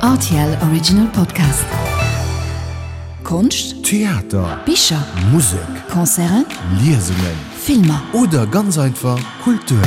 Rtl Original Podcast. Konscht, Theater, Bicher, Musek, Concerten, Liesungen, Filmer. Oder ganz einfach Kultur.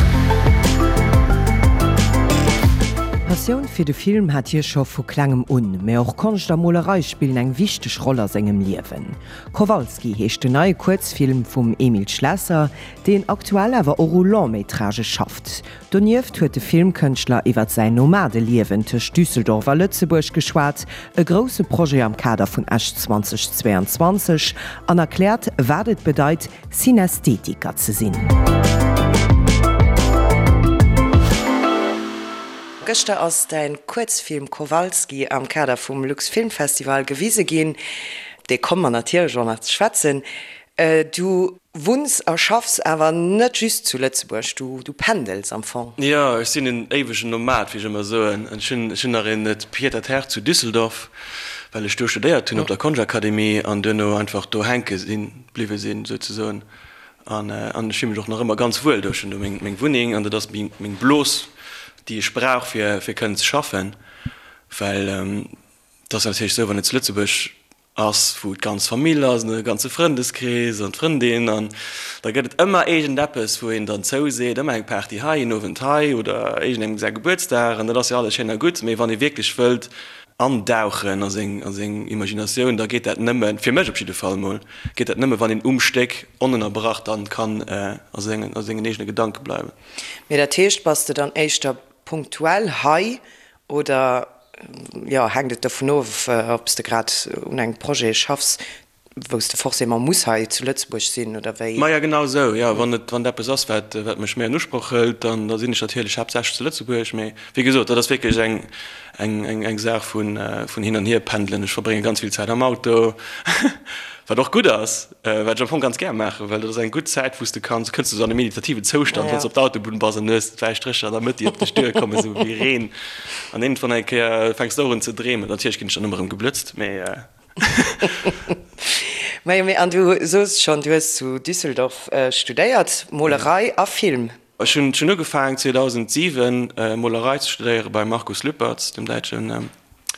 D'Passioun fir de Film hat hie scho vu klengem un, mä och Konscht a Molerei spillen eng wichteg Roll a sengem Liewen. Kowalski heescht den neie Kuerzfilm vum Emile Schlesser, deen aktuell awer och u Long-métragë schafft. Donieft huet de Filmkënschtler iwwer säin Nomadeliewen tëscht Düsseldorf a Lëtzebuerg geschwat, e grousse Projet am Kader vun Esch 2022, an erkläert, wat et bedeit, Synästhetiker ze sinn. Gëschter ass däin Kuerzfilm Kowalski am Kader vum Luxfilmfestival gewise ginn. Op dee komme mer natierlech och nach ze schwätzen. Du wunns a schaffs awer net just zu Lëtzebuerg, du pendels am Fong. Jo, ech sinn en éiwegen Nomad, wéi ech ëmmer soen. Ech hunn ech hunn nach een Pied-à-terre zu Düsseldorf, well ech do studéiert hunn op der Konschtakademie an duerno einfach do hänke sinn, bliwwe sinn souzesoen. An an ech fille mech och nach ëmmer ganz wuel do. Ech hunn do meng meng Wunneng an dat ass meng meng Blos, déi ech brauch fir fir kënnen ze schaffen, well et ass natierlech esou, wann een zu Lëtzebuerg ass, wou d'ganz Famill ass an de ganze Frëndeskrees an d'Frëndin an da gëtt et ëmmer iergendeppes, wou een dann zouseet, ëmmer eng Party hei, een Owend hei oder iergendengem säi Gebuertsdag an dat ass jo alles schéin a gutt, mee wann ee wierklech wëllt andauchen a seng a seng Imaginatioun, da geet dat nëmmen, fir mech op jidde Fall mol, geet dat nëmme wann een um Stéck onënnerbrach dann kann a sengen a sengen eegene Gedanke bleiwen. Mee dat heescht, bass de dann éischter punktuell hei Oder jo, hänkt et dovun of, ob s de grad un engem Projet schaffs, wou s de forcément muss hei zu Lëtzebuerg sinn, oder wéi? Maja, genau esou, jo. Wann et, wann et eppes ass, wat, wat mech méi an Usproch hëlt, dann, da sinn ech natierlech haaptsächlech zu Lëtzebuerg. Mee wéi gesot, dat ass wierklech eng, eng, eng, eng Saach vun, vun hin an hier pendelen. Ech verbrénge ganz vill Zäit am Auto, wat och gutt ass. Wat ech am Fong ganz gär maachen, well dat ass eng gutt Zäit, wou s de kanns, kënns du sou an e meditativen Zoustand, wann s de op der Autobunn bass an du hues d'wäiss Strécher an der Mëtt, déi op dech duerkommen, esou wéi Reen. An iergendwann eng Kéier fänks de och un ze dreemen. Natierlech ginn ech dann ëmmer erëm geblëtzt, mee. Majo, mee an du soos schonn, du hues zu Düsseldorf studéiert, Molerei a Film. Ech hunn ugefaangen 2007 Molerei ze studéiere beim Markus Lüpertz, dem däitschen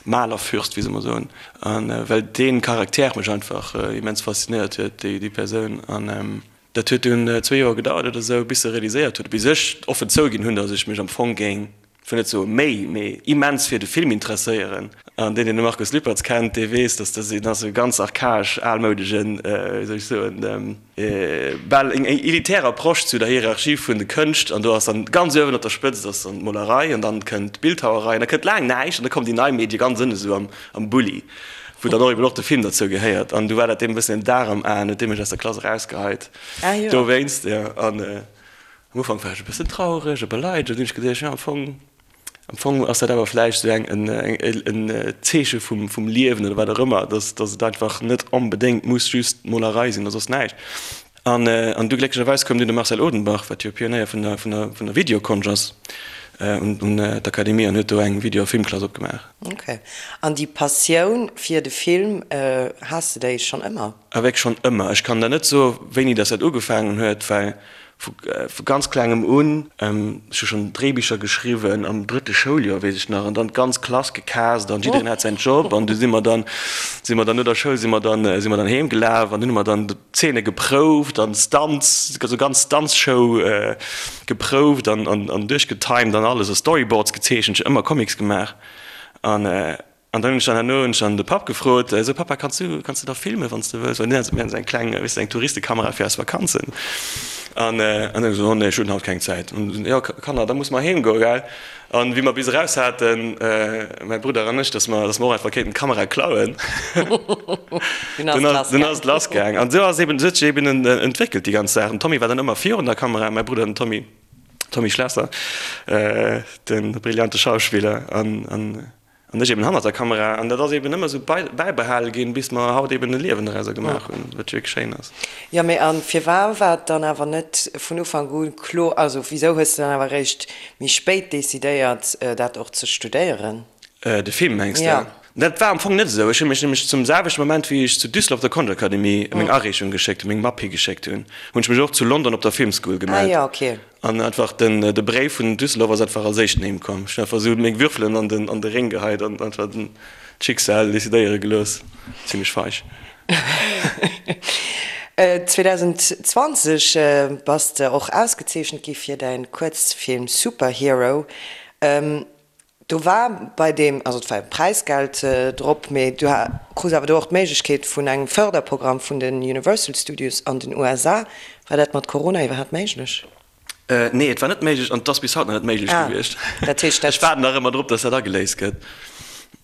Malerfürst, wéi se ëmmer soen, a well dee Charakter mech einfach immens faszinéiert huet, déi Persoun. An dat huet dunn zwee Joer gedauert oder esou, bis se realiséiert huet, bis ech offen zouginn hunn, datt ech mech am Fong géing, ech wëll net soe méi, mee immens fir de Film interesséieren. An deen, deen de Markus Lüpertz kennt, dee weess, datt dat een ass, e ganz archaesch, almoudegen, wéi soll ech soen, bal eng elitär Approche zu der Hierarchie vun de Kënscht, an do ass dann ganz uewen op der Spëtzt ass dann d'Molerei an dann kënnt d'Bildhauerei an da kënnt laang näischt an da kommen déi nei Medie ganz ënne sou am am Bulli, wou dann och eben och de Film derzou gehéiert. An du war dat deem e bëssen en Dar am Aen, huet dee mech aus der Klass erausgeheit dowéinst, jo. An am Ufank war ech e bëssen traureg a beleidegt an dunn hunn ech geduecht, jo am Fong Am Fong ass dat awer vläicht esou eng en Zeeche vum vum Liewen oder wat och ëmmer, dass dass et einfach net onbedéngt muss just Molerei sinn oder soss näischt. An an du glécklecherweis koum dunn de Marcel Odenbach, wat jo Pionéier vun der vun der vun der Videokonscht ass, un un d'Akademie an huet do eng Video a Filmklass opgemaach. Ok. An déi Passioun fir de Film, has de déi schonn ëmmer? Avec schonn ëmmer. Ech kann der net soe wéini dass dat ugefaangen huet, well vu ganz klengem un, ech hu schonn Dréibicher geschriwwen am drëtte Schouljoer, weess ech nach, an dann d'ganz Klass gecast an jiddereen hat säin Job an du si mer dann, si mer dann no der Schoul si mer dann, si mer dann heem gelaf an dunn hu mer dann Zeene geprouft an Stunts, esou ganz Stunts-Show geprouft an an duerchgetimed an alles a Storyboards gezeechent, ech hu ëmmer Comics gemaach an. An dann hunn ech dann herno hunn ech dann de Papp gefrot, esou, Papa, kanns du, kanns du da filmen, wann s de wëlls? Well mir haten esou eng kleng, weess de, eng Touristekamera fir eis Vakanzen. An, an dann esou, oh nee, ech hunn haut keng Zäit. An jo, Kanner, da musse mer heem goen, gell? An wéi mer bis eraus haten, mäi Brudder an ech, dass mer, dass mer och einfach kéinten d'Kamera klauen, dunn ass, dunn ass et lass gaang. An esou ass eben, esou huet sech eben entwéckelt déi ganz Saach. Den Tommy war dann ëmmer virun der Kamera, mäi Brudder den Tommy, Tommy Schlesser, de brillante Schauspiller, an, an. An ech eben hannert der Kamera. An dat ass eben ëmmer esou bäibehale ginn, bis mer haut eben e Liewen dorauser gemaach hunn, wat wierklech schéin ass. Jo, mee a firwar war et dann awer net vun Ufank u kloer, also wisou hues de dann awer eréischt méi spéit decidéiert, dat och ze studéieren? De Film, mengs de? Jo. Dat war am Fong net esou. Ech hu mech nämlech zum selwechte Moment, wéi ech zu Düsseldorf op der Konschtakademie meng Areechung geschéckt hunn, meng Mapp higeschéckt hunn, hunn ech mech och zu London op der Filmschool gemellt. An einfach den de Bréif vun Düsseldorf ass einfach als éischten heem komm. Ech hunn einfach esou meng Würfelen an den an de Réng geheit an einfach den d'Schicksal decidéiere gelooss. Zimlech feig. 2020 bass de och ausgezeechent gi fir däin Kuerzfilm Superhero. Do war bei deem, also et war e Präisgeld drop, mee du krus awer do och d'Méiglechkeet vun engem Förderprogramm vun den Universal Studios an den USA. War dat mat Corona iwwerhaapt méiglech? Nee, et war net méiglech an et ass bis haut nach net méiglech gewiescht. Dat heescht, dat. Ech waarden nach ëmmer drop, dass dat ageléist gëtt.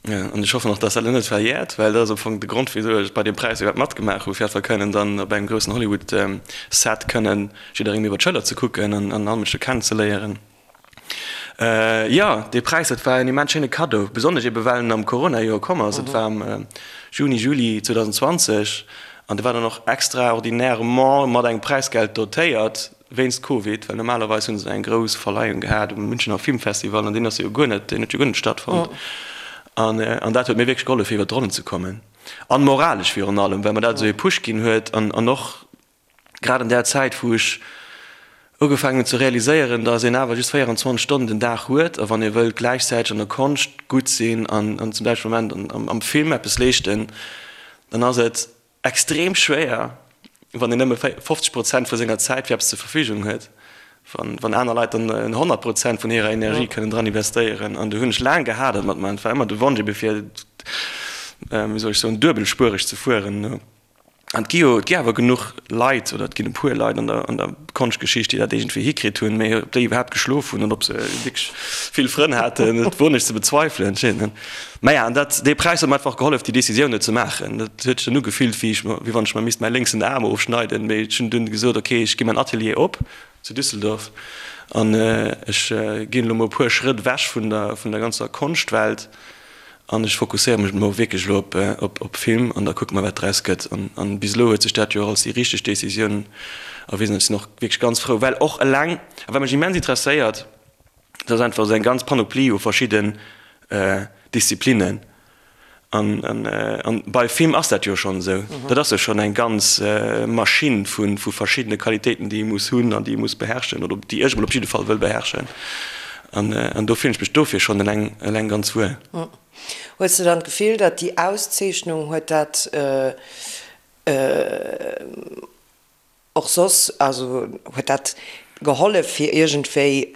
An ech hoffen och, dass dat elo net verjäert, well dat ass am Fong de Grond, wisou ech bei deem Präis iwwerhaapt matgemaach hu, fir einfach kënnen dann op engem groussen Hollywood-Set kënnen jidderengem iwwer d'Schëller ze kucken an all Mënsche kennenzeléieren. Jo, dee Präis, dat war en immens schéine Kaddo, besonnesch ebe well en am Corona-Joer komm ass. Et war am Juni, Juli 2020 an de war dann och extraordinairement mat engem Präisgeld dotéiert wéinst Covid, well normalerweis hu se eng grouss Verleihung gehat um Münchener Filmfestival an deen ass jo guer net, deen huet jo guer net stattfonnt. An dat huet mir wierklech gehollef fir iwwer d'Ronnen ze kommen an moralesch virun allem, well mer dat esou ee Push ginn huet an och Grad an där Zäit, wou ech ugefaangen hunn ze realiséieren, dass een awer just 24 Stonnen den Dag huet a wann ee wëllt gläichzäiteg an der Konscht gutt sinn an zum selwechte Moment am Film eppes leeschten, dann ass et extrem schwéier, wann een nëmme 50 Prozent vu senger Zäit fir eppes zur Verfügung huet, wann aner Leit dann 100 Prozent vun hirer Energie kënnen dran investéieren. An do hunn ech laang gehadert mat mer. Et war ëmmer de Wonsch ebe fir, wéi soll ech soen, duebelspuereg ze fueren. An et gi jo, et gi awer genuch Leit, oder et ginn e puer Leit an der, an der Konschtgeschicht, déi dat iergendwéi hikritt hunn, mee ob déi iwwerhaapt geschlof hunn an ob se wierklech vill Frënn haten, dat woen ech ze bezweifelen. Maja, an dat, dee Präis huet mer einfach gehollef, déi Decisioun do ze maachen. Dat huet sech dann ugefillt, wéi ech mer, wéi wann ech mer misst mäi lénksen Aarm ofschneiden, mee ech hunn dunn gesot, okay, ech gi mäin Atelier op zu Düsseldorf an ech ginn elo mol e puer Schrëtt ewech vun der, vun der ganzer Konschtwelt. An ech fokusséiere mech elo wierklech elo op Film an da kucke mer, wat draus gëtt. An bis elo huet sech dat jo och als déi richteg Decisioun erwisen. Ech sinn och wierklech ganz frou, well och eleng, a wat mech immens interesséiert, dat ass einfach esou eng ganz Panoplie u verschidden Disziplinnen. An bei Film ass dat jo schonn esou. Dat ass jo schonn eng ganz Maschinn vu verschiddene Qualitéiten, déi ee muss hunn an déi ee muss beherrschen oder déi ech emol op jidde Fall wëll beherrschen. An do fillen ech mech dofir schonn eleng, eleng ganz wuel. Hues de dann d'Gefill, datt déi Auszeechnung, huet dat och soss, also huet dat gehollef fir iergendwéi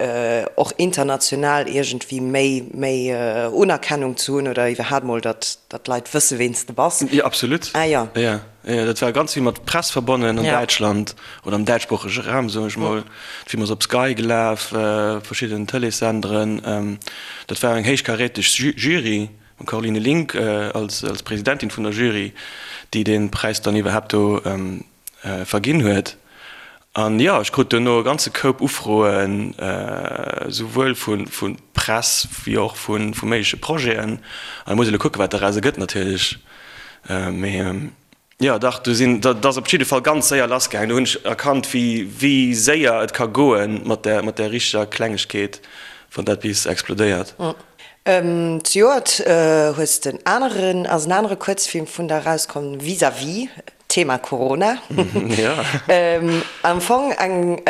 och international iergendwéi méi, méi Unerkennung ze hunn oder iwwerhaapt mol, datt, datt d'Leit wësse ween s de bass? Jo, absolut. Ah jo. Jo. Jo, dat war ganz vill mat Press verbonnen an Däitschland oder am däitschsproochege Raum, soen ech mol. De Film ass op Sky gelaf, verschidden Tëleessenderen. Dat war eng héichkaräteg Jury, mam Caroline Link als Presidentin vun der Jury, déi dee Präis dann iwwerhaapt do verginn huet. An jo, ech krut duerno e ganze Koup Ufroen, souwuel vu Press wéi och vu méigleche Projeten. An da muss ee elo kucken, wat doraus ergëtt natierlech. Mee jo, dach, do sinn, dat ass op jidde Fall ganz séier lassgaangen. Do hunn ech erkannt, wéi, wéi séier et ka goen mat där, mat där richteger Klengegkeet, wann dat bis explodéiert. Zejoert hues de en aneren, ass en anere Kuerzfilm vun der erauskomm, Vis-à-vis, Thema Corona. Am Fong eng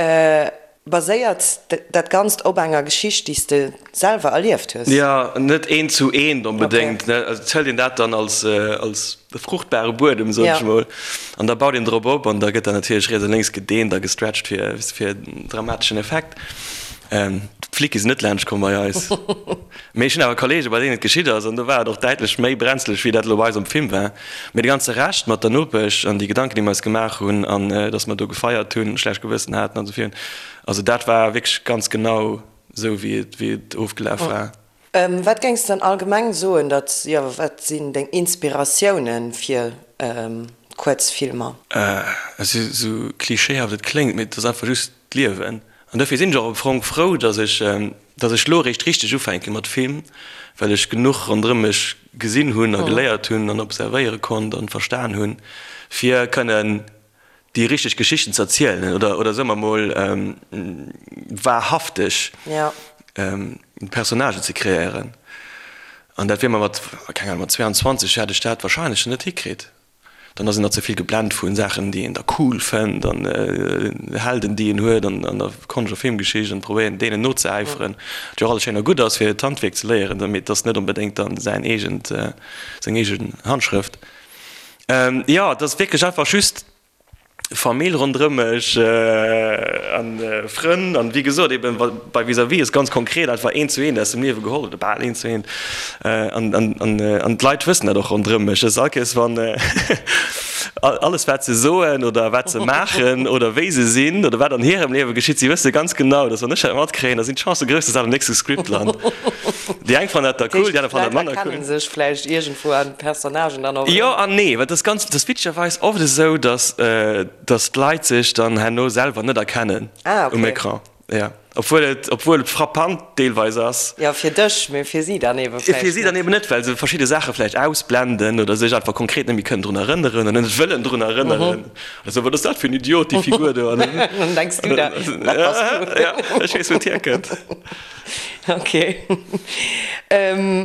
Baséiert dat Ganzt op enger Geschicht, déi s de selwer erlieft hues? Jo, net eent zu eent onbedéngt. Also et hëlt een dat dann als als fruchtbare Buedem, soen ech mol, an da baut een drop op an da gëtt dat natierlech riets a lénks gedeent a gestretcht fir fir en dramateschen Effekt. D'Flicke sinn net laanscht komm bei eis. Mee ech hunn awer Kollege bei deenen et geschitt ass an do war et och däitlech méi brenzeleg wéi dat elo bei eis am Film war. Mee de ganze Rescht mat der Nopesch an déi Gedanken, déi mer eis gemaach hunn an dass mer do gefeiert hunn, schlecht Gewëssen haten an esou virun, also dat war wierklech ganz genau esou wéi et, wéi et ofgelaf war. Wat géings de dann allgemeng soen, datt, jo, wat sinn deng Inspiratiounen fir Kuerzfilmer? Esou klischeehaft et kléngt, mee et ass einfach just d'Liewen. An dofir sinn ech och am Fong frou, dass ech, dass ech elo eréischt richteg ufänke mat Film, well ech genuch ronderëm mech gesinn hunn a geléiert hunn an observéiere konnt an verstan hunn, fir kënnen déi richteg Geschichten ze erzielen oder, oder soe mer mol, wahrhafteg Personnagen ze kreéieren. An dat wier mer mat, keng Ahnung, mat 22 hätt ech dat wahrscheinlech net hikritt. Dann ass een nach ze vill geblent vu Saachen, déi een da cool fënnt an Helden, déi een huet an der Konscht a Filmgeschicht an probéieren deenen nozeäiferen, wat jo och alles schéin a gutt ass, fir d'Handwierk ze léieren, mee et ass net onbedéngt dann säin eegent, seng eegen Handschrëft. Jo, et ass wierklech einfach just Famill ronderëm mech an Frënn an wéi gesot eben bei Vis-à-vis ass ganz konkret einfach eent zu eent aus dem Liewe geholl oder bal eent zu eent an an an d'Leit wëssen dat och ronderëm mech. Dass all Kéiers wann alles wat se soen oder wat se maachen oder wéi se sinn oder wat an hirem Liewe geschitt, si wësse ganz genau, dass wann ech dat matkréien, da sinn d'Chancë grouss, dass dat am nächste Script lant. Déi eng fannen dat da cool, déi aner fannen dat manner cool. D'Leit erkennen sech vläicht iergendwou an Personnagen dann och erëm. Jo an nee, well et ass ganz, et ass witzegerweis oft esou, dass, dass d'Leit sech dann herno selwer net erkennen um Ecran. Jo, obwuel et, obwuel et frappant deelweis ass. Jo, fir dech, mee fir si dann ebe vläicht Fir si dann net. eben net, well se verschidde Saache vläicht ausblenden oder sech einfach konkret net méi kënnen drun erënneren oder net wëllen drun erënneren. Oder sou, wat ass dat fir en Idiot, déi Figur do? An dann denks du der, dat bass du. Ja, ech weess, wou et hierkënnt. Ok.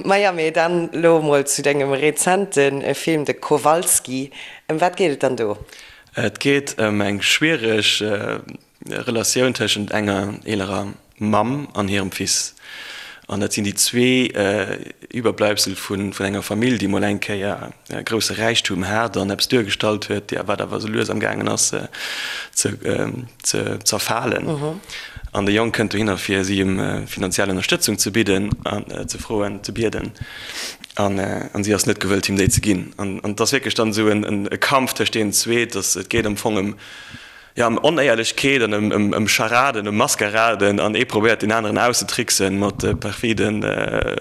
Maja, mee dann elo emol zu dengem rezente Film, de Kowalski. Ëm wat geet et dann do? Et geet ëm eng schwiereg Relatioun tëschent enger eelerer Mamm an hirem Fils. An dat sinn déi zwee Iwwerbleibsel vun enger Famill, déi mol eng Kéier e grousse Räichtum hat an eppes duergestallt huet, wat awer esou lues am gaangen ass ze zerfalen. An de Jong kënnt dohinner fir si ëm finanziell Ënnerstëtzung ze bidden an ze froen, ze bieden. An si ass net gewëllt him déi ze ginn. An et ass wierklech dann esou e Kampf tëscht deenen zwee. Et geet am Fong ëm Jo, ëm Onéierlechkeet an ëm Charaden, ëm Maskaraden an ee probéiert deen aneren auszetricksen mat perfide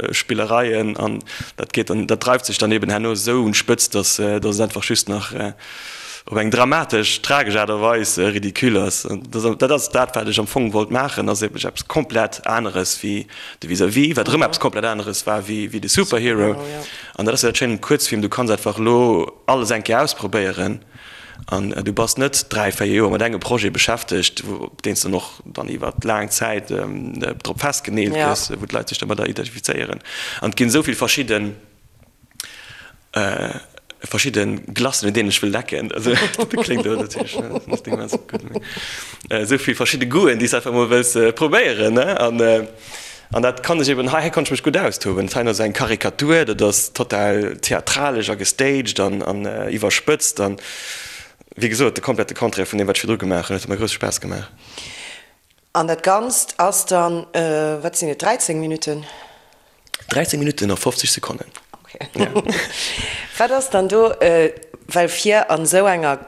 Spillereien an dat geet dann, dat dreift sech dann eben herno esou un d'Spëtzt, dass dass et einfach just nach op eng dramatesch, tragesch Aart a Weis ridicule ass. An dat ass dat, wat ech am Fong wollt maachen, ass eben eppes komplett aneres wéi de Vis-à-vis, wat erëm eppes komplett aneres war wéi wéi de Superhero. An dat ass jo dat Schéint um Kuerzfilm, du kanns einfach elo alles eng Kéier ausprobéieren. An du bass net 3, 4 Joer mat engem Projet beschäftegt, op deen s de dann och dann iwwer laang Zäit drop festgeneelt gëss, wou d'Leit sech domadder identifizéieren. An et ginn esou vill verschidde verschidde Glacen, un deenen ech wëll lecken. Also dat kléngt elo natierlech net immens gutt, mee esou vill verschidde Goûten, déi s de einfach emol wëlls probéieren, ne? An An dat kann ech eben, hei konnt ech mech gutt austoben. Dat hei ass eng Karikatur, dat ass total theatralesch a gestaged an an iwwerspëtzt an, wéi gesot, de komplette Contraire vun deem, wat ech virdru gemaach hunn. Et huet mer grousse Spaass gemaach. An dat Ganzt ass dann, wat sinn et, 13 Minutten? 13 Minutten a 50 Sekonnen. Ok. Wat ass dann do, well fir an esou enger,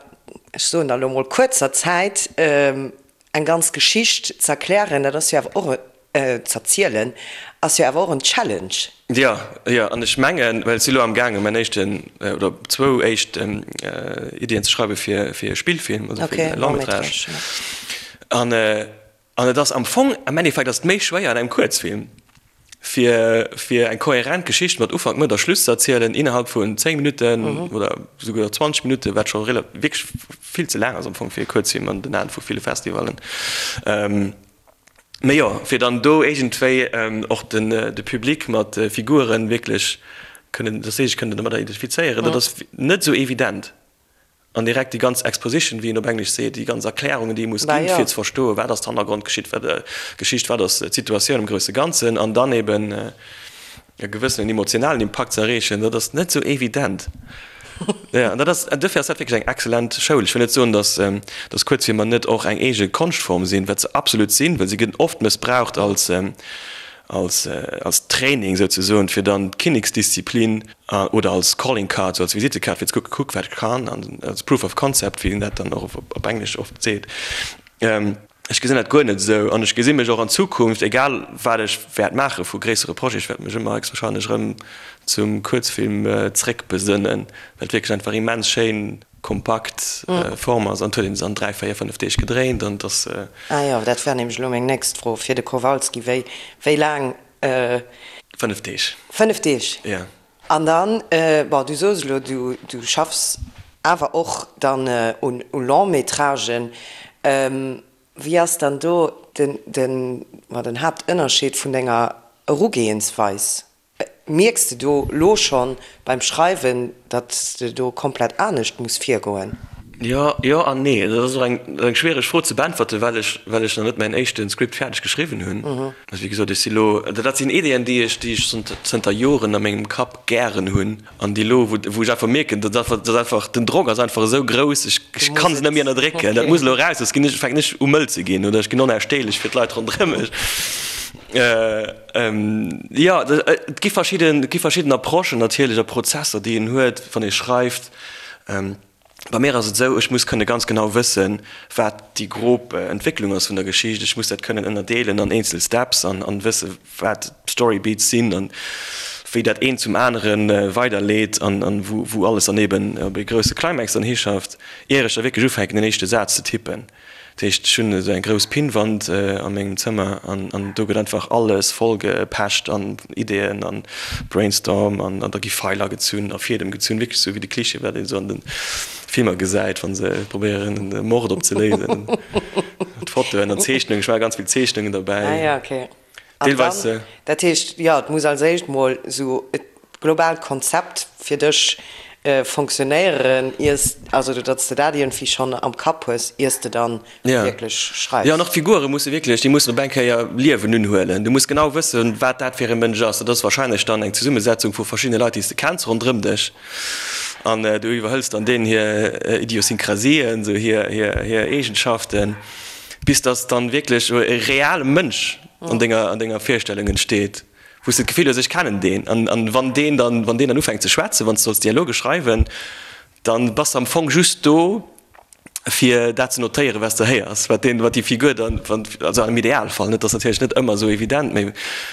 ech soen da lo mol, kuerzer Zäit eng ganz Geschicht z'erklären, dat ass jo awer och z'erzielen, ass jo awer och en Challenge. Jo, jo, an ech mengen, well ech si lo am gaangen, mäin éischten oder zwou éischt Iddien ze schreiwe fir fir e Spillfilm, also fir e Long-métrage. An an et ass am Fong, am Endeffekt ass et méi schwéier an engem Kuerzfilm, fir fir eng kohärent Geschicht mat Ufank, Mëtt a Schluss ze erzielen innerhalb vun 10 Minutten oder souguer 20 Minutten, wat scho rela wierklech vill ze laang ass am Fong fir e Kuerzfilm an den Aen vu ville Festivallen. Mee jo, fir dann do iergendwéi och den de Public mat Figuren wierklech kënnen, dass si sech kënnen domadder identifizéieren, dat ass net esou evident. An direkt déi ganz Exposition, wéi een op Englesch seet, déi ganz Erklärungen, déi ee muss ginn, fir ze verstoen, wat ass d'Hannergrondgeschicht, wat Geschicht, wat ass d'Situatioun am grousse Ganzen, an dann eben e gewëssenen emotionalen Impakt ze erreechen, dat ass net esou evident. Jo, an dat ass, duerfir ass dat wierklech eng excellent Schoul. Ech wëll net soen, datt, datt Kuerzfilmer net och eng eege Konschtform sinn, wat se absolut sinn, well se ginn oft mëssbraucht als, als, als Training souzesoen, fir dann d'Kinneksdisziplin oder als Calling Card, sou als Visittekaart, fir ze kucken, kuck wat ech kann, an als Proof of Concept, wéi een dat dann och op Englesch oft seet. Ech gesinn dat guer net esou an ech gesi mech och an Zukunft, egal wat ech wäert maache vu gréissere Projeten, ech wäert mech ëmmer héchstwahrscheinlech erëm zum Kuerzfilm zréckbesënnen, well et wierklech einfach immens schéin kompakt Form ass an et huet een se an 3, 4, 5 Deeg gedréint an et ass. Ah jo, dat war nämlech elo meng nächst Fro fir de Kowalski, wéi wéi laang? 5 Deeg. 5 Deeg? Jo. An dann, bon, du soos elo, du du schaffs awer och dann un u Long-métragen. Wéi ass dann do den den, ma den Haaptënnerscheed vun denger Erugehensweis? Mierks de do lo schonn beim Schreiwen, datt s de do komplett anescht muss virgoen? Jo, jo an nee. Dat ass och eng eng schwiereg Fro ze beäntwerten, well ech well ech nach net mäin éischte Script fäerdeg geschriwwen hunn. Also wéi gesot, ech si lo, dat sinn Ideeën, déi ech déi ech zënter Joren a mengem Kapp gären hunn an déi elo, wou wou ech einfach mierken, dat ass dat ass einfach, den Drock ass einfach esou grouss, ech ech kann se net méi ënnerdrécken, dat muss elo eraus, soss ginn ech, fänken ech u mëll ze ginn oder ech ginn onausstehlech fir d'Leit ronderëm mech. Jo, et gi verschidden, et gi verschidden Approchen natierlech a Prozesser, déi een huet, wann ee schreift. Bei mir ass et esou, ech muss kënne ganz genau wëssen, wat déi grob Entwécklung ass vun der Geschicht. Ech muss dat kënnen ënnerdeelen an eenzel Steps an an wësse wat d'Story Beats sinn an wéi dat eent zum anere weiderleet an an wou wou alles dann eben op ee grousse Climax dann hischafft, ier ech da wierklech ufänken den éischte Saz ze tippen. Dat heescht, ech hunn esou eng grouss Pinnwand a mengem Zëmmer an an do gëtt einfach alles voll gepecht an Ideeën an Brainstorm an an da gi Feiler gezunn a Fiedem gezunn, wierklech esou wéi de Klischee, wat een esou an de Filmer gesäit, wa se probéieren e Mord opzeléisen. Fotoen an Zeechnungen, ech maache ganz vill Zeechnungen derbäi. Ah ja, okay. An dann, dat heescht, jo, et muss als éischt mol esou e globaalt Konzept fir dech fonctionnéieren, iers, also datt s de dat iergendwéi schonn am Kapp hues, iers de dann wierklech schreifs. Jo, an och d'Figure musse wierklech, déi mussen op eng Kéier Liewen unhuelen. Du muss genau wëssen, wat dat fir e Mënsch ass. Dat ass wahrscheinlech dann eng Zesummesetzung vu verschiddene Leit, déi s de kenns ronderëm dech. An du iwwerhëls dann deenen hir Idiosynkrasien, esou hir, hir, hir Eegenschaften, bis dass dann wierklech e reale Mënsch an denger, an denger Virstellung entsteet, wou s de d'Gefill hues, ech kennen deen. An, an wann deen dann, wann deen dann ufänkt ze schwätzen, wann s de solls Dialoge schreiwen, dann bass de am Fong just do, fir dat ze notéieren, wat s de héiers, wat deen, wat déi Figur dann, wann, also am Idealfall, net, ass natierlech net ëmmer esou evident, mee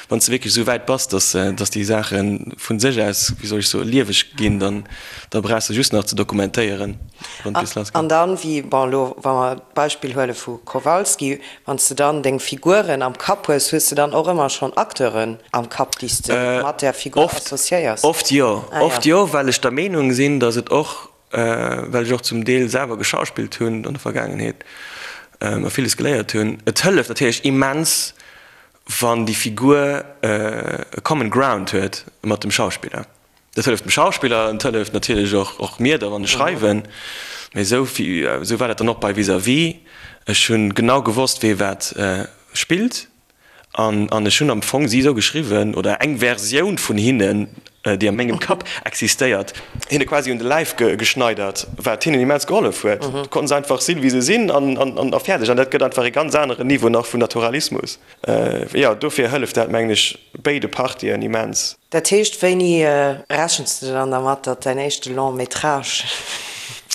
wann s de wierklech esou wäit bass, dass, dass déi Saache vu sech aus, wéi soll ech soen, lieweg ginn, dann, da brauchs de just nach ze dokumentéieren, wann et bis lass geet. An dann, wéi, bon, elo wa mer d'Beispill huele vu Kowalski, Wann s de dann deng Figuren am Kapp hues, hues de dann och ëmmer schonn Acteuren am Kapp, déi s de mat där Figur associéiers? Oft jo. Oft jo, well ech der Meenung sinn, datt et och, well ech och zum Deel selwer geschauspillt hunn an der Vergaangenheet a villes geléiert hunn, et hëlleft natierlech immens, wann déi Figur e common ground huet mat dem Schauspiller. Dat hëlleft dem Schauspiller an et hëlleft natierlech och och mir da wann ech schreiwen. Mee esou esou war dat dann och bei Vis-à-vis. Ech hunn genau gewosst wee wat spillt an an ech hunn am Fong si esou geschriwwen oder eng Versioun vun hinnen, déi a mengem Kapp existéiert, hinne quasi un de Läif geschneidert, wat hinnen immens gehollef huet. Du konnten se einfach sinn wéi se sinn an an a fäerdeg. An dat gëtt einfach e ganz aneren Niveau nach vun Naturalismus. Jo, dofir hëlleft dat mengen ech béide Partien immens. Dat heescht, wéini rechens de dann dermat, datt däin éischte Long métrage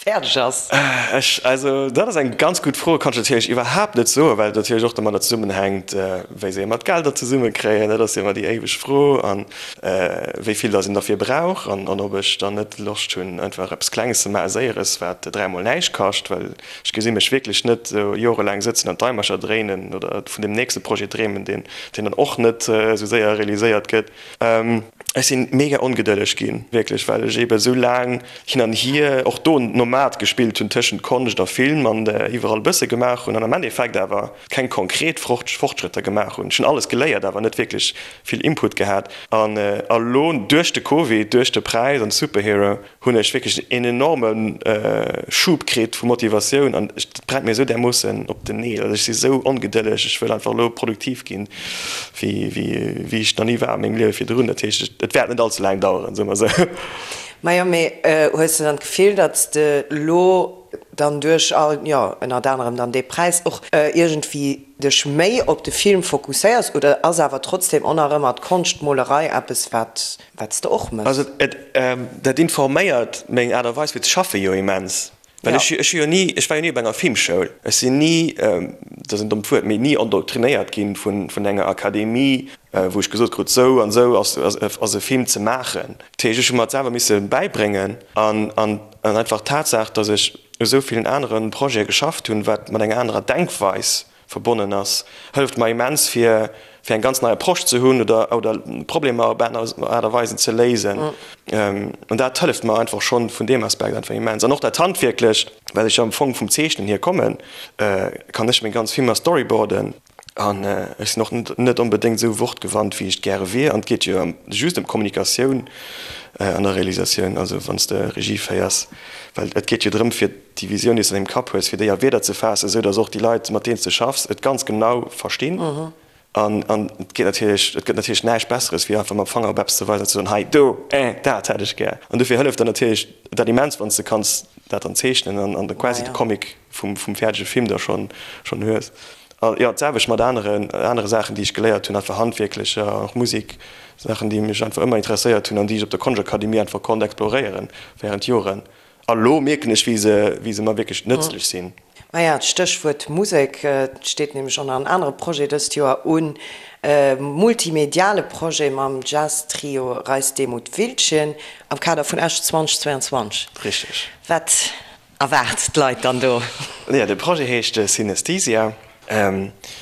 fäerdeg ass? Ech, also dat ass eng ganz gutt Fro, kann ech natierlech iwwerhaapt net soen, well et natierlech och domadder zesummenhänkt, wéi se ëmmer d'Gelder zesummekréien. Dat ass jo ëmmer déi éiweg Fro an wéi vill datt een derfir brauch an ob ech dann net Loscht hunn, einfach eppes Klenges ze maachen, Séieres, wat dräimol näischt kascht, well Ech gesi mech wierklech net esou jorelaang sëtzen an d'Daimercher dréinen oder vun deem nächste Projet dreemen, deen dann och net esou séier realiséiert gëtt. Ech si mega ongedëlleg ginn, wierklech, well ech eebe esou laang hin an hier, och do Nomad gespillt hunn tëschent Konscht a Film an iwwerall e bësse gemaach hunn an am Endeffekt awer keng konkret Fortschrëtter gemaach hunn. Ech hunn alles geléiert, awer net wierklech vill Input gehat. An elo duerch de Covid, duerch de Präis an Superhero, hunn ech wierklech een enorme Schub kritt vu Motivatioun an et brennt mir esou därmoossen op den Neel. Also ech si sou ongedëlleg, ech wëll einfach elo produktiv ginn, wéi wéi ech nach ni war a mengem Liewe virdrun. Dat heescht, et wäert net all ze laang daueren, soe mer esou. Majo, mee hues de dann d'Gefill, datt s de elo dann duerch, jo, ënnert anerem dann dee Präis och iergendwéi dech méi op de Film fokusséiers oder ass awer trotzdem och nach ëmmer d'Konschtmolerei eppes wat wat s de och méchs? Also et, dat informéiert meng Aart a Weis fir ze schaffe jo immens, well ech ech hu jo ni, ech war jo ni op enger Filmschoul, ech sinn ni, dat ass en dommt Wuert, mee ni endoktrinéiert ginn vun vun enger Akademie, wou ech gesot krut, sou an sou ass ass e Film ze maachen. Dat heescht, ech hu mer et selwer misse bäibréngen an an an einfach d'Tatsaach, datt ech u sou villen anere Projete geschafft hunn, wat mat enger anerer Denkweis verbonnen ass, hëlleft mer immens fir fir eng ganz nei Approche ze hunn oder oder Problemer op aner Aart a Weisen ze léisen. An dat hëlleft mer einfach schonn vun deem Aspekt einfach immens. An och dat Handwierklecht, well ech jo am Fong vum Zeechnen hier kommen, kann ech meng ganz Filmer storyboarden. An ech sinn och net onbedéngt esou wortgewandt, wéi ech et gäre wier. An et geet jo just ëm d'Kommunikatioun an der Realisatioun, also wann s de Regie féiers, well et geet jo drëm, fir déi Visioun, déi s de an dengem Kapp hues, fir déi a Wierder ze faassen, esou datt och déi Leit, mat deenen s de schaffs, et ganz genau verstinn. An et geet natierlech, et gëtt natierlech näischt Besseres, wéi einfach mam Fanger op eppes ze weisen an ze soen, hei, do, eh, dat hätt ech gär. An dofir hëlleft dann natierlech dat immens, wann s de kanns dat dann zeechnen an an quasi de Comic vum fäerdege Film da schonn hues. A jo, d'selwecht mat aneren, anere Saachen, déi ech geléiert hunn, einfach handwierklecher, och Musek, Saachen, déi mech einfach ëmmer interesséiert hunn an déi ech op der Konschtakademie einfach konnt exploréieren während Joren. A lo mierken ech, wéi se, wéi se mer wierklech nëtzlech sinn. Maja, d'Stéchwuert Musek steet nämlech och nach en anere Projet dëst Joer un, e multimediale Projet mam Jazz-Trio Reis Demuth Wildchen am Kader vun Esch 2022. Richteg. Wat Erwaart d'Leit dann do? Jo, de Projet heescht Synesthesia.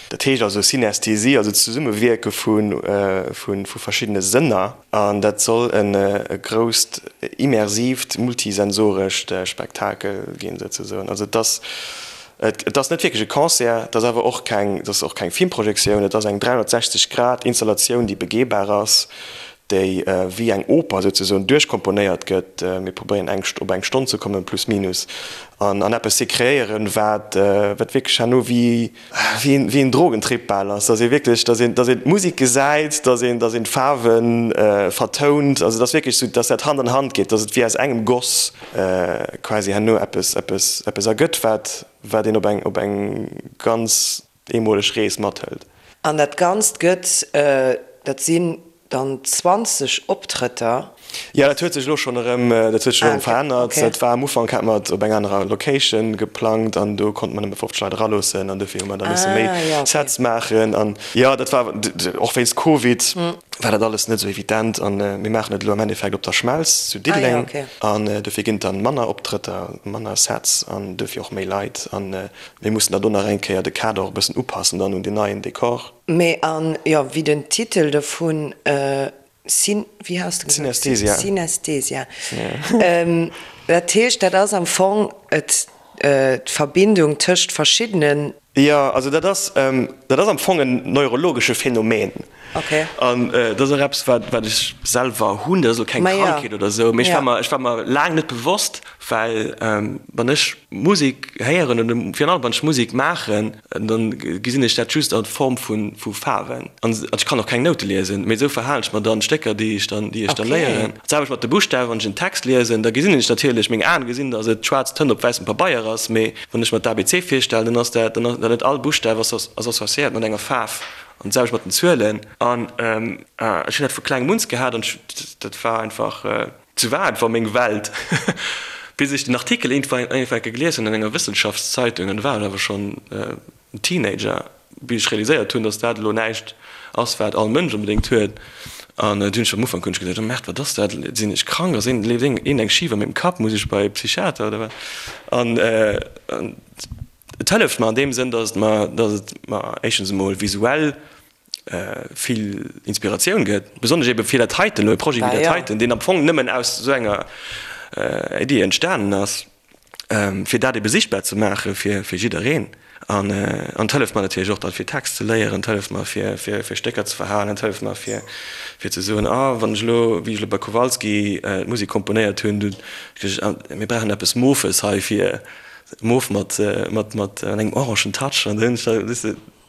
Dat heescht also Synästhesie, also d'Zesummewierke vu verschiddene Sënner. An dat soll e grousst immersiivt, multisensorescht Spektakel ginn, souzesoen. Also et ass, et ass net wierklech e Concert, et ass awer och keng, et ass och keng Filmprojektioun, et ass eng 360 Grad Installatioun, déi begehbar ass, déi wéi eng Oper souzesoen duerchkomponéiert gëtt. Mir probéieren eng op eng Stonn ze kommen, plus minus, an an eppes ze kreéieren, wat wat wierklech herno wéi wéi een wéi een Drogentrip bal ass, dass ee wierklech, dass een dass een d'Musek gesäit, dass een dass een d'Faarwe vertount, also dass wierklech sou, dass dat Hand an Hand geet, dass et wéi aus engem Goss quasi herno eppes eppes eppes ergëtt, wat wat een op eng op eng ganz eemoleg Rees mathëlt. An dat Ganzt gëtt, dat sinn dann 20 Optrëtter. Jo, dat huet sech elo schonn erëm, dat huet sech elo erëm verännert. Dat war am Ufank, hate mer et op eng anerer Location geplangt an do konnte mer nëmme 50 Leit eraloossen an dofir hu mer da misse méi Sets maachen. An jo, dat war och wéinst Covid war dat alles net esou evident an mir maachen et elo am Endeffekt op der Schmelz zu Diddeleng an dofir ginn et dann manner Optrëtter, manner Sets an dofir och méi Leit an Mir mussen da do nach eng Kéier de Kader och e bëssen upassen dann un deen neien Dekor. Mee an, jo, wéi den Titel dovun, Syn, wéi has de gesot? Synesthesia. Synesthesia. Dat heescht, dat ass am Fong et, d'Verbindung tëscht verschiddenen. Jo, also dat ass, dat ass am Fong en neurologesche Phänomen. Okay. An dat ass och eppes, wat, wat ech selwer hunn. Dat ass elo keng Krankheet oder esou, mee ech war mer, ech war mer laang net bewosst, well wann ech Musek héieren oder virun allem wann ech Musek maachen, dann gesinn ech dat just a Form vu, vu Faarwen. An ech kann och keng Noute liesen, mee esou verhalen ech mer dann d'Stécker, déi ech dann, déi ech dann léieren. D'selwecht mat de Buschtawen, wann ech en Text liesen, da gesinn ech natierlech, meng Aen gesinn, datt et schwaarz Tënt op wäissem Pabeier ass, mee wann ech mer d'ABC virstellen, dann ass dat, dann ass net all Buschtaf ass associéiert mat enger Faarf. An d'selwecht mat den Zuelen. An ech hunn dat vu klengem uns gehat an dat war einfach, sou war einfach meng Welt. Bis ech den Artikel iergendwann eng Kéier gelies hunn an enger Wëssenschaftszeitung, an do war ech awer schonn en Teenager, bis ech realiséiert hunn, datt dat elo näischt ass, wat all Mënsch onbedéngt huet. An du hunn ech am Ufank hunn ech geduecht, oh Merde, wat ass dat? Sinn ech krank? Ass een, leeft een eng schif a mengem Kapp? Muss ech bei e Psychiater oder wat? An et hëlleft mer an deem Sënn, datt et mer, datt et mer éischtens emol visuell vill Inspiratioun gëtt, besonnesch ebe fir dat heiten elo, e Projet wéi dat heiten, deen am Fong nëmmen aus esou enger Iddi entstanen ass. fir dat ebe sichtbar ze maache fir jiddereen. An et hëlleft mer natierlech och dann, fir Text ze léieren, et hëlleft mer, fir Stécker ze verhalen, et hëlleft mer, fir ze soen, ah, wann ech elo, wéi ech elo bei Kowalski d'Musek komponéiert hunn, du, mir brauchen eppes Mofes hei fir, mof mat engem orangen Touch. An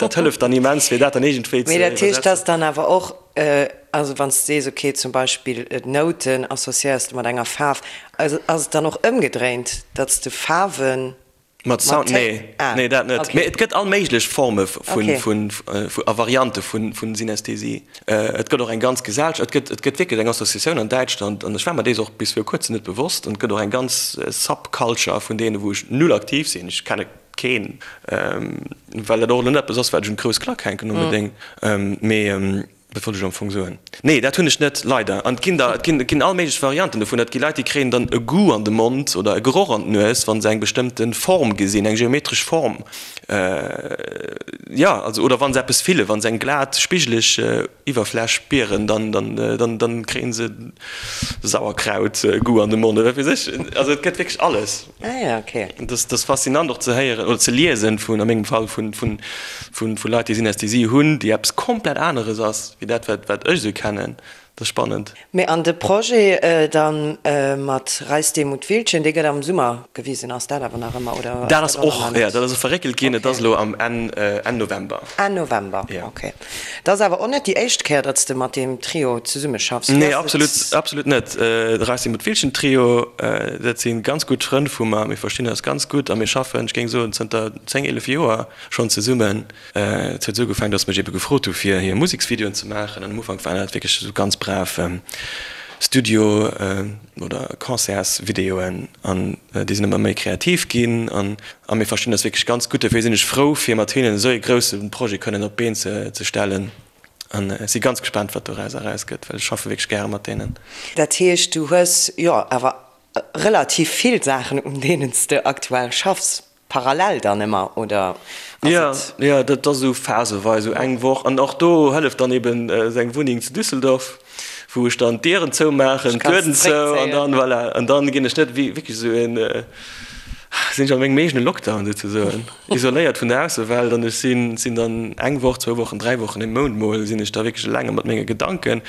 dat hëlleft dann immens, fir dat dann iergendwéi ze Mee dat heescht, iwwersetzen. dass dann awer och, also wann s de sees, okay, zum Beispill d'Nouten associéiers de mat enger Faarf, also ass et dann och ëmgedréint, datt s de Faarwe Mat Sound? Nee, nee, dat net. Okay. Mee et gëtt all méiglech Forme vun, Okay. vun, vu, a Variante vun, vun Synästhesie. Et gëtt och eng ganz Gesellschaft, et gëtt, et gëtt wierklech eng Associatioun an Däitschland, an ech war mer dees och bis viru kuerzem net bewosst, an et gëtt och eng ganz Subculture vun deene wou ech null aktiv sinn, ech kenne keen, well dat och elo net eppes ass, wat ech un d'grouss Klack hänken onbedéngt. Mee. Wat wollt ech am Fong soen? Nee, dat hunn ech net, leider. An et ginn der, et ginn, et ginn all méiglech Varianten dovun. Et gi Leit, déi kréien dann e Goût an de Mond oder e Geroch an d'Nues, wa se eng bestëmmte Form gesinn, eng geometresch Form. Jo, also, oder wa se eppes fillen, wa se eng glat, spigeleg Iwwerfläch spieren, dann, dann, dann, dann kréie se Sauerkraut-Goût an de Mond oder wat weess ech. Also et gëtt wierklech alles. Ah ja, okay. Dat ass faszinant och ze héieren oder ze liesen vun, a mengem Fall, vun, vun, vun, vu Leit, déi Synästhesie hunn, déi eppes komplett aneres ass wéi dat, wat, wat ech esou kennen. Dat ass spannend. Mee an de Projet dann mat Reis Demuth Wiltgen, dee gëtt am Summer gewisen, ass dat awer nach ëmmer, oder ass Dat ass och nach net? Jo, dat ass och verréckelt ginn. Et ass elo am Enn, Enn November. Enn November, okay. Dat ass awer och net déi éischt Kéier, datt s de mat deem Trio zesummeschaffs. Nee, absolut, absolut net. De Racing Mutwilchen Trio, dat si ganz gutt Frënn vu mer. Mir verstinn eis ganz gutt a mir schaffen, ech géing soen, zënter 10, 11 Joer schonn zesummen. Et huet esou ugefaangen, datt se mech ebe gefrot hu fir hir Museksvideoen ze maachen. An am Ufank waren dat wierklech esou ganz brav Studio oder Concertsvideoen. An déi sinn ëmmer méi kreativ ginn. An A mir verstinn eis wierklech ganz gutt. Dofir sinn ech frou, fir mat hinnen esou ee grousse Projet kënnen op d'Been ze stellen. An ech si ganz gespaant, wat doraus erausgëtt, well ech schaffe wierklech gäre mat deenen. Dat heescht, du hues jo awer relativ vill Saachen, un deenen s de aktuell schaffs, parallel dann ëmmer, oder ass et? Jo, jo, dat ass esou phaseweis, esou eng Woch. An och do hëlleft dann eben seng Wunneng zu Düsseldorf, wou ech dann d'Dieren zoumaachen, d'Lueden zou, an dann, voilà, an dann ginn ech net wéi wierklech esou een, sinn ech a mengem eegene Lockdown souzesoen, isoléiert vun der Aussewelt an ech sinn, sinn dann eng Woch, zwou Wochen, dräi Wochen, ee Mount mol sinn ech da wierklech elenge mat menge Gedanken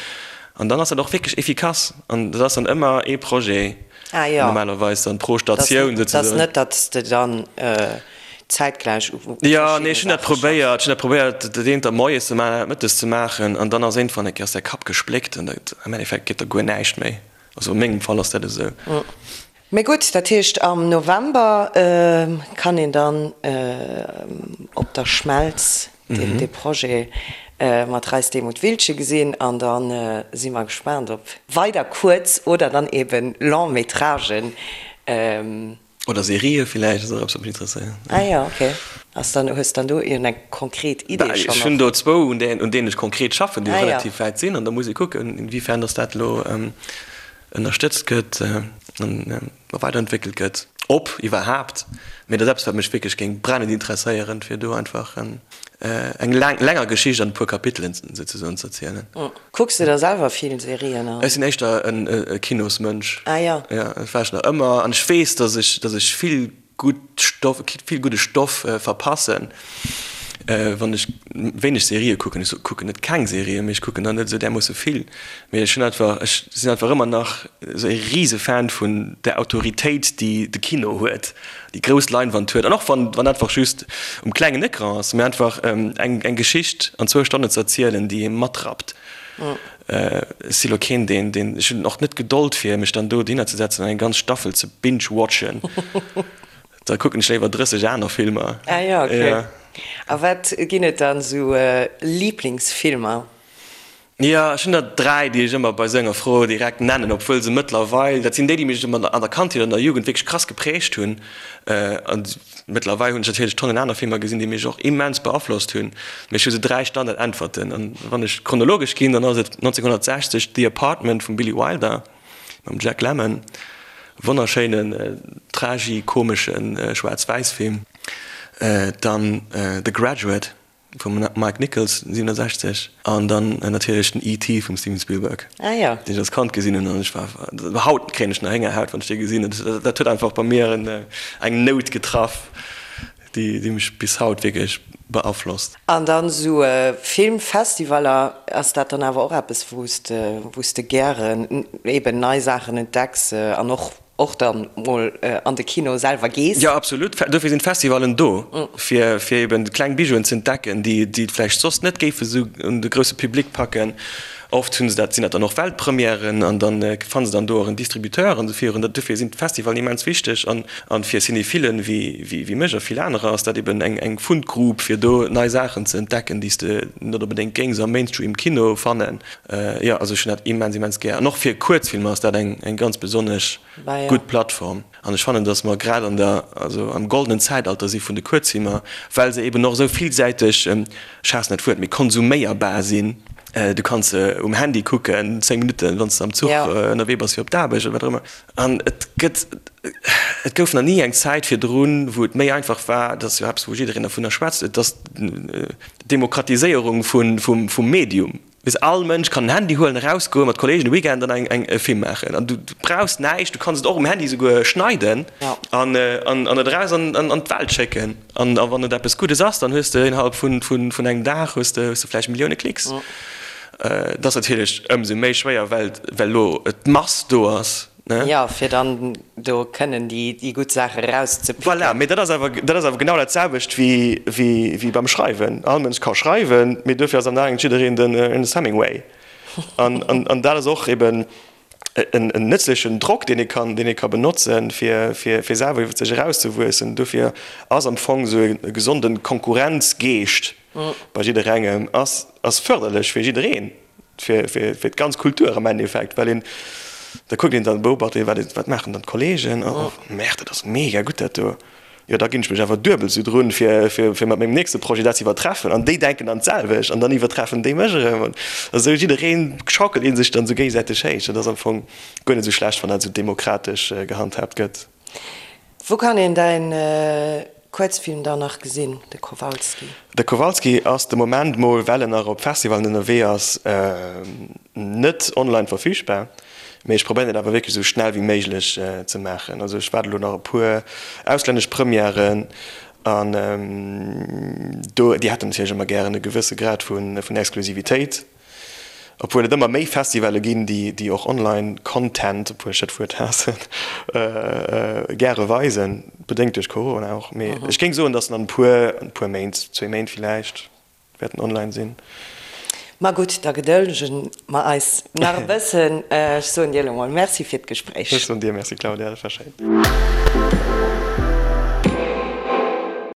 an dann ass dat och wierklech efficace an dat ass dann ëmmer ee Projet normalerweis dann pro Statioun souzesoen. Dat ass net, datt s de dann zäitgläich u Jo, nee, ech hunn dat probéiert, ech hunn dat probéiert, dat eent da moies ze maachen, dat mëttes ze maachen an dann ass iergendwann eng Kéier ass däi Kapp gespléckt an dat, am Endeffekt geet da guer näischt méi. Also a mengem Fall ass dat esou. Mee gutt, dat heescht am November kann een dann op der Schmelz dee Projet mat Reis Demuth Wiltgen gesinn an da si mer gespaant op weider Kuerz oder dann eben Long-métragen. Oder Serië villäicht, ass och eppes wat mech interesséiert. Ah jo, ok. Ass dann, hues dann do iergend eng konkret Idee schonn? Ech hunn do zwou, un deenen ech konkret schaffen, déi relativ wäit sinn an da muss ee kucken, inwiefern datt dat elo ënnerstëtzt gëtt an weiderentwéckelt gëtt, ob iwwerhaapt. Mee dat ass eppes, wat mech wierklech géing brennend interesséieren, fir do einfach eng länger Geschicht an e puer Kapitelen souzesoen ze erzielen. Kucks de da selwer vill Serien an? Ech sinn éischter e Kinosmënsch. Ah jo. Jo, dat war ech nach ëmmer. An ech weess, dass ech, dass ech vill gutt Stoff, vill gudde Stoff verpassen, wann ech wéineg Serië kucken. Ech kucken net keng Serien, mee ech kucken der net esou därmoosse vill. Mee ech hunn einfach, ech sinn einfach ëmmer nach esou e Risefan vun der Autoritéit, déi de Kino huet, déi grouss Leinwand huet. An och wann, wann einfach just um klengen Ecran ass, mee einfach eng, eng Geschicht an zwou Stonnen ze erzielen, déi ee matrappt. Ech si lo keen, deen, deen, ech hunn och net d'Gedold fir mech dann do dohinner ze setzen an eng ganz Staffel ze binge-watchen. Da kucken ech léiwer 30 aner Filmer. Ah jo, okay. A wat ginn et dann esou Liblingsfilmer? Jo, ech hunn der 3, déi ech ëmmer bei sou enger Fro direkt nennen, obwuel se mëttlerweil, dat sinn déi, déi mech ëmmer an der Kandheet, an der Jugend wierklech krass geprägt hunn. An mëttlerweil hunn ech natierlech Tonnen aner Filmer gesinn, déi mech och immens beaflosst hunn. Mee ech hu sou 3 Standardäntwerten. An wann ech chronologesch ginn, dann ass et 1960 The Apartment vum Billy Wilder mam Jack Lemmon, wonnerschéinen tragi-komesche Schwaarz-Wäiss-Film. Dann The Graduate Vum Mike Nichols 67 an dann natierlech den ET vum Steven Spielberg, deen ech als Kand gesinn hunn an ech war, haut kréien ech nach Héngerhaut wann ech dee gesinn. Dat huet einfach bei mir eng Nout getraff, déi mech bis haut wierklech beaflosst. An dann esou Filmfestivaler, ass dat dann awer och eppes wou s de, wou s de gären eben nei Saachen entdecks an och Och dann mol an de Kino selwer gees? Jo, absolut. Dofir sinn d'Festivallen do, fir fir eben kleng Bijouen ze entdecken, déi déi et vläicht soss net géife sou un de grousse Public packen. Oft hunn se dat, sinn dat dann och Weltpremièren an dann fanne se dann do och en Distributeur an esou virun. Dofir sinn d'Festivallen immens wichteg an an fir Cinéphilen wéi wéi wéi mech a vill anerer ass dat eben eng eng Fundgrub fir do nei Saachen ze entdecken, déi s de net onbedéngt géings am Mainstream Kino fannen. Jo, also ech hunn dat immens, immens gär. An och fir Kuerzfilmer ass dat eng, eng ganz besonnesch gutt Plattform. An ech fannen, datt mer grad an der, also am goldenen Zäitalter si vun de Kuerzfilmer, well se eben och esou villsäiteg, ech haassen dat Wuert, mee konsuméierbar sinn. Du kanns se um Handy kucken, 10 Minutten, wann s de am Zuch ënnerwee bass fir op d'Aarbecht oder wat och ëmmer. An et gëtt, et gouf nach ni eng Zäit virdrun, wou et méi einfach war, dat ass jo eppes, wou jiddereen dervunner schwätzt, et ass d'Demokratiséierung vum Medium. Weess, all Mënsch kann en Handy huelen, erausgoen, mat Kolleegen e Weekend an eng e Film maachen. An du brauchs näischt, du kanns et och um Handy souguer schneiden an et eraus an d'Welt schécken. An wann et eppes Guddes ass, dann hues de innerhalb vun engem Dag hues de vläicht Millioune Klicks. Dat ass natierlech ëmsou méi schwéier, well elo d'Mass do ass. Jo, fir dann do kënnen déi gutt Saache erauszepicken. Voilà, mee dat ass awer, dat ass awer genau dat selwecht wéi beim Schreiwen. All Mënsch ka schreiwen, mee duerfir ass am Enn jiddereen den Ernest Hemingway. An dat ass och eben en nëtzlechen Drock, deen ee kann, deen ee ka benotzen, fir selwer iwwer sech erauszewuessen. Duerfir ass am Fong esou e gesonde Konkurrenzgeescht bei jidderengem ass fërderlech fir jiddereen. Fir d'ganz Kultur am Endeffekt, well een, da kuckt een dann, beobacht een, wat, wat maachen dann d'Kollegen, oh merde, dat ass mega gutt dat do, jo da ginn ech mech awer duebel esou drun, fir, fir, fir mat mengem nächste Projet dat ze iwwertreffen an déi denken dann d'selwecht an dann iwwertreffen déi mech erëm an esou jiddereen schaukelt ee sech dann esou géigesäiteg héich. Dat ass am Fong guer net esou schlecht, wann dat esou demokratesch gehandhaabt gëtt. Wou kann een däin Kuerzfilm dann nach gesinn, de Kowalski? De Kowalski ass de Moment mol, well en nach op Festivalen ënnerwee ass, net online verfügbar. Mee ech probéieren et awer wierklech esou schnell wéi méiglech ze maachen. Also ech waarde lo nach e puer auslännesch Premièren an do, déi hätten natierlech ëmmer gären e gewësse Grad vun Exklusivitéit. Obwuel et ëmmer méi Festivalle ginn, déi och online Content, obwuel ech dat Wuert haassen, gäre weisen, bedéngt duerch Corona och. Mee ech géing soen, datt en an e puer, an e puer Méint, zwee Méint villäicht, wäert en online sinn. Ma gutt, da gedëllege mer eis nach e bëssen. Ech soen dir elo mol Merci fir d'Gespréich. Ech soen dir Merci, Claudia, dat war schéin.